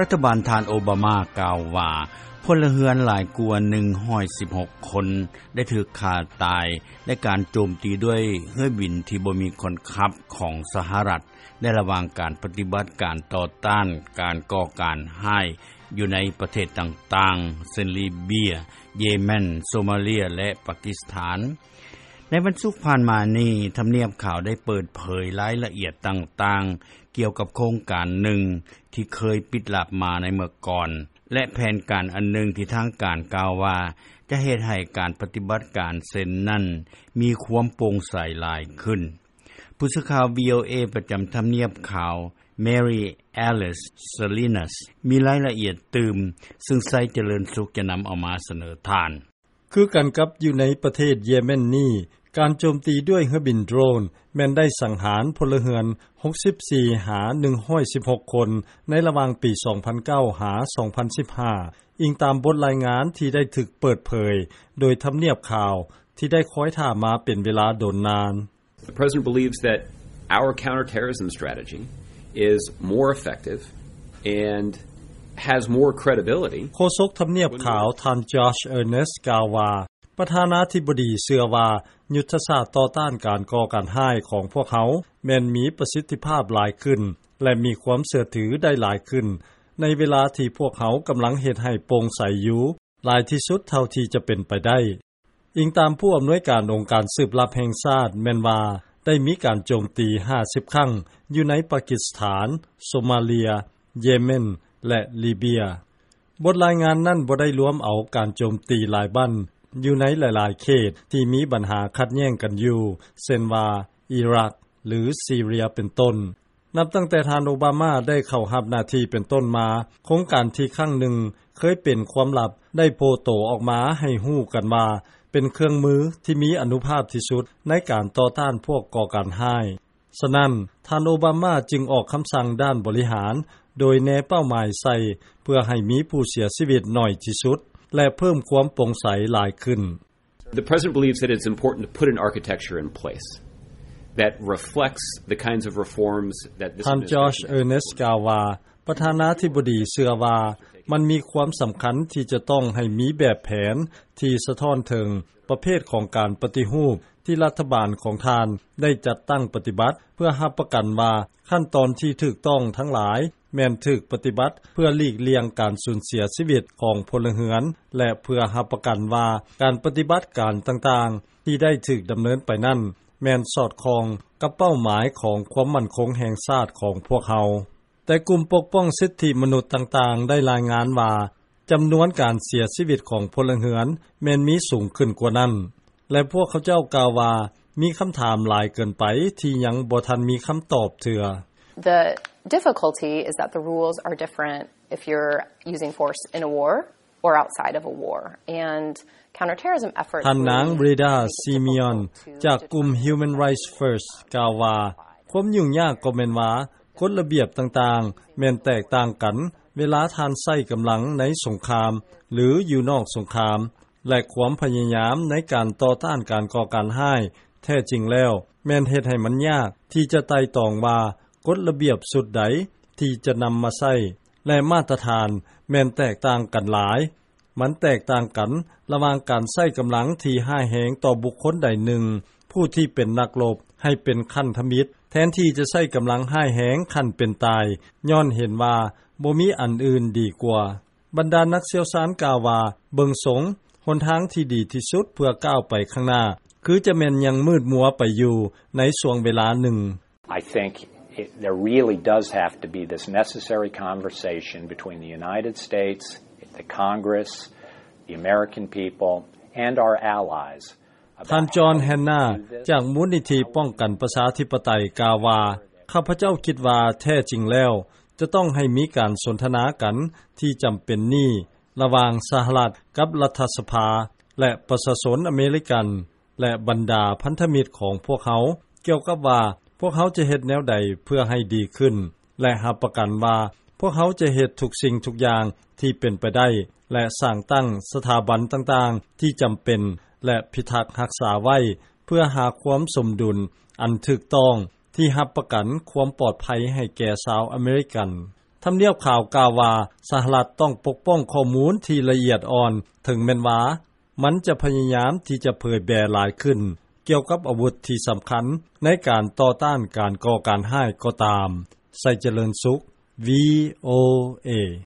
ລັດຖະບານທ່ານໂອບາມາກ່າວວ່າ ພົນລະເຮືອນຫຼາຍກວ່າໜຶ່ງຮ້ອຍສິບຫົກຄົນ ໄດ້ຖືກຂ້າຕາຍ ໃນການໂຈມຕີດ້ວຍເຮືອບິນທີ່ບໍ່ມີຄົນຂັບຂອງສະຫະລັດ ໃນລະຫວ່າງການປະຕິບັດການຕໍ່ຕ້ານການກໍ່ການຮ້າຍ ຢູ່ໃນປະເທດຕ່າງໆ ເຊັ່ນ ລີເບຍ, ເຢເມັນ, ໂຊມາເລຍ ແລະ ປາກິສຖານ. ໃນວັນສຸກຜ່ານມານີ້ ທຳນຽບຂາວໄດ້ເປີດເຜີຍລາຍລະອຽດຕ່າງໆ ກ່ຽວກັບໂຄງການໜຶ່ງທີ່ເຄີຍປິດລັບມາໃນເມື່ອກ່ອນ ແລະ ແຜນການອັນໜຶ່ງທີ່ທາງການກ່າວວ່າ ຈະເຮັດໃຫ້ການປະຕິບັດການເຊັ່ນນັ້ນ ມີຄວາມໂປ່ງໃສຫຼາຍຂຶ້ນ. ຜູ້ສື່ຂ່າວ ວີໂອເອ ປະຈຳທຳນຽບຂາວ Mary Alice Salinas ມີລາຍລະອຽດຕື່ມ ຊຶ່ງໄຊຈະເລີນສຸກຈະນຳເອົາມາສະເໜີທ່ານ. ຄືກັນກັບຢູ່ໃນປະເທດເຢເມັນນີ້ ການໂຈມຕີດ້ວຍເຮືອບິນໂດຣນ ແມ່ນໄດ້ສັງຫານພົນລະເຮືອນຫົກສິບສີ່ຫາໜຶ່ງຮ້ອຍສິບຫົກຄົນ ໃນລະຫວ່າງປີສອງພັນເກົ້າຫາສອງພັນສິບຫ້າ ອີງຕາມບົດລາຍງານທີ່ໄດ້ຖືກເປີດເຜີຍໂດຍທຳນຽບຂາວ ທີ່ໄດ້ຄອຍຖ້າມາເປັນເວລາດົນນານ. The president believes that our counterterrorism strategy is more effective and has more credibility. ໂຄສົກທຳນຽບຂາວ ທ່ານ Josh Earnest ກ່າວວ່າ ປະທານາທິບໍດີເຊື່ອວ່າ ຍຸດທະສາດຕໍ່ຕ້ານການກໍ່ການຮ້າຍຂອງພວກເຮົາ ແມ່ນມີປະສິດທິພາບຫຼາຍຂຶ້ນ ແລະ ມີຄວາມເຊື່ອຖືໄດ້ຫຼາຍຂຶ້ນ ໃນເວລາທີ່ພວກເຮົາກຳລັງເຮັດໃຫ້ໂປ່ງໃສຢູ່ ຫຼາຍທີ່ສຸດເທົ່າທີ່ຈະເປັນໄປໄດ້. ອີງຕາມຜູ້ອຳນວຍການອົງການສືບລັບແຫ່ງຊາດ ແມ່ນວ່າໄດ້ມີການໂຈມຕີຫ້າສິບຄັ້ງ ຢູ່ໃນປາກິສຖານ, ໂຊມາເລຍ, ເຢເມັນ ແລະ ລີເບຍ. ບົດລາຍງານນັ້ນບໍ່ໄດ້ລວມເອົາການໂຈມຕີຫຼາຍບ່ອນຢູ່ໃນຫຼາຍໆເຂດທີ່ມີບັນຫາຂັດແຍ່ງກັນຢູ່ ເຊັ່ນວ່າ ອີຣັກ ຫຼື ຊີເຣຍ ເປັນຕົ້ນ. ນັບຕັ້ງແຕ່ທ່ານໂອບາມາໄດ້ເຂົ້າຮັບໜ້າທີ່ເປັນຕົ້ນມາ, ໂຄງການທີ່ຄັ້ງໜຶ່ງເຄີຍເປັນຄວາມລັບ ໄດ້ໂຜ່ໂຕອອກມາໃຫ້ຮູ້ກັນວ່າ ເປັນເຄື່ອງມືທີ່ມີອານຸພາບທີ່ສຸດໃນການຕໍ່ຕ້ານພວກກໍ່ການຮ້າຍ. ສະນັ້ນ, ທ່ານໂອບາມາຈຶ່ງອອກຄຳສັ່ງດ້ານບໍລິຫານ ໂດຍແນເປົ້າໝາຍໃສ່ ເພື່ອໃຫ້ມີຜູ້ເສຍຊີວິດໜ້ອຍທີ່ສຸດ ແລະ ເພີ່ມຄວາມໂປ່ງໃສຫຼາຍຂຶ້ນ. The president believes that it's important to put an architecture in place that reflects the kinds of reforms that this ທ່ານ Josh administration has Earnest ກ່າວວ່າ ປະທານາທິບໍດີເຊື່ອວ່າ ມັນມີຄວາມສຳຄັນທີ່ຈະຕ້ອງໃຫ້ມີແບບແຜນທີ່ສະທ້ອນເຖິງປະເພດຂອງການປະຕິຮູບທີ່ລັດຖະບານຂອງທ່ານໄດ້ຈັດຕັ້ງປະຕິບັດ ເພື່ອຮັບປະກັນວ່າຂັ້ນຕອນທີ່ຖືກຕ້ອງທັງຫຼາຍ ແມ່ນຖືກປະຕິບັດເພື່ອຫຼີກລ່ຽງການສູນເສຍຊີວິດຂອງພົນລະເຮືອນ ແລະ ເພື່ອຮັບປະກັນວ່າການປະຕິບັດການຕ່າງໆທີ່ໄດ້ຖືກດຳເນີນໄປນັ້ນ ແມ່ນສອດຄ່ອງກັບເປົ້າໝາຍຂອງຄວາມໝັ້ນຄົງແຫ່ງຊາດຂອງພວກເຮົາ. ແຕ່ກຸ່ມປົກປ້ອງສິດທິມະນຸດຕ່າງໆໄດ້ລາຍງານວ່າ ຈຳນວນການເສຍຊີວິດຂອງພົນລະເຮືອນແມ່ນມີສູງຂຶ້ນກວ່ານັ້ນ ແລະ ພວກເຂົາເຈົ້າກ່າວວ່າ ມີຄຳຖາມຫຼາຍເກີນໄປທີ່ຍັງບໍ່ທັນມີຄຳຕອບເທື່ອ. The difficulty is that the rules are different if you're using force in a war or outside of a war. And counterterrorism efforts ທ່ານນາງ Reda Simeon ຈາກກຸ່ມ Human Rights First ກ່າວວ່າ ຄວາມຫຍຸ້ງຍາກກໍແມ່ນວ່າ ກົດລະບຽບຕ່າງໆ ແມ່ນແຕກຕ່າງກັນ ເວລາທ່ານໃຊ້ກຳລັງໃນສົງຄາມ ຫຼື ຢູ່ນອກສົງຄາມ ແລະ ຄວາມພະຍາຍາມໃນການຕໍ່ຕ້ານການກໍ່ການຮ້າຍ ແທ້ຈິງແລ້ວ ແມ່ນເຮັດໃຫ້ມັນຍາກທີ່ຈະໄຕ່ຕອງວ່າ ກົດລະບຽບຊຸດໃດທີ່ຈະນຳມາໃຊ້ ແລະ ມາດຕະຖານແມ່ນແຕກຕ່າງກັນຫຼາຍ. ມັນແຕກຕ່າງກັນລະຫວ່າງການໃຊ້ກຳລັງທີ່ຮ້າຍແຮງຕໍ່ບຸກຄົນໃດໜຶ່ງ ຜູ້ທີ່ເປັນນັກລົບ ໃຫ້ເປັນຂັ້ນທຳອິດ ແທນທີ່ຈະໃຊ້ກຳລັງຮ້າຍແຮງຂັ້ນເປັນຕາຍ ຍ້ອນເຫັນວ່າບໍ່ມີອັນອື່ນດີກວ່າ. ບັນດານັກຊ່ຽວຊານກ່າວວ່າ ເບິ່ງຊົງ ຫົນທາງທີ່ດີທີ່ສຸດເພື່ອກ້າວໄປຂ້າງໜ້າ ຄືຈະແມ່ນຍັງມືດມົວໄປຢູ່ໃນຊ່ວງເວລາໜຶ່ງ. I think it, there really does have to be this necessary conversation between the United States, the Congress, the American people, and our allies. ທ່ານ John Hanna ຈາກມູນນິທິປ້ອງກັນປະຊາທິປະໄຕ ກ່າວວ່າ ຂ້າພະເຈົ້າຄິດວ່າແທ້ຈິງແລ້ວ ຈະຕ້ອງໃຫ້ມີການສົນທະນາກັນທີ່ຈຳເປັນນີ້ ລະຫວ່າງສະຫະລັດກັບລັດຖະສະພາ ແລະ ປະຊາຊົນອາເມລິກັນ ແລະ ບັນດາພັນທະມິດຂອງພວກເຮົາ ກ່ຽວກັບວ່າພວກເຮົາຈະເຮັດແນວໃດເພື່ອໃຫ້ດີຂຶ້ນ ແລະ ຮັບປະກັນວ່າພວກເຮົາຈະເຮັດທຸກສິ່ງທຸກຢ່າງທີ່ເປັນໄປໄດ້ ແລະ ສ້າງຕັ້ງສະຖາບັນຕ່າງໆທີ່ຈຳເປັນ ແລະ ພິທັກຮັກສາໄວ້ ເພື່ອຫາຄວາມສົມດຸນອັນຖືກຕ້ອງ ທີ່ຮັບປະກັນຄວາມປອດໄພໃຫ້ແກ່ຊາວອາເມລິກັນ. ທຳນຽບຂາວກ່າວວ່າ ສະຫະລັດຕ້ອງປົກປ້ອງຂໍ້ມູນທີ່ລະອຽດອ່ອນ ເຖິງແມ່ນວ່າ ມັນຈະພະຍາຍາມທີ່ຈະເຜີຍແຜ່ຫຼາຍຂຶ້ນ ກ່ຽວກັບອາວຸດທີ່ສຳຄັນ ໃນການຕໍ່ຕ້ານການກໍ່ການຮ້າຍກໍຕາມ. ໄຊຈະເລີນສຸກ ວີໂອເອ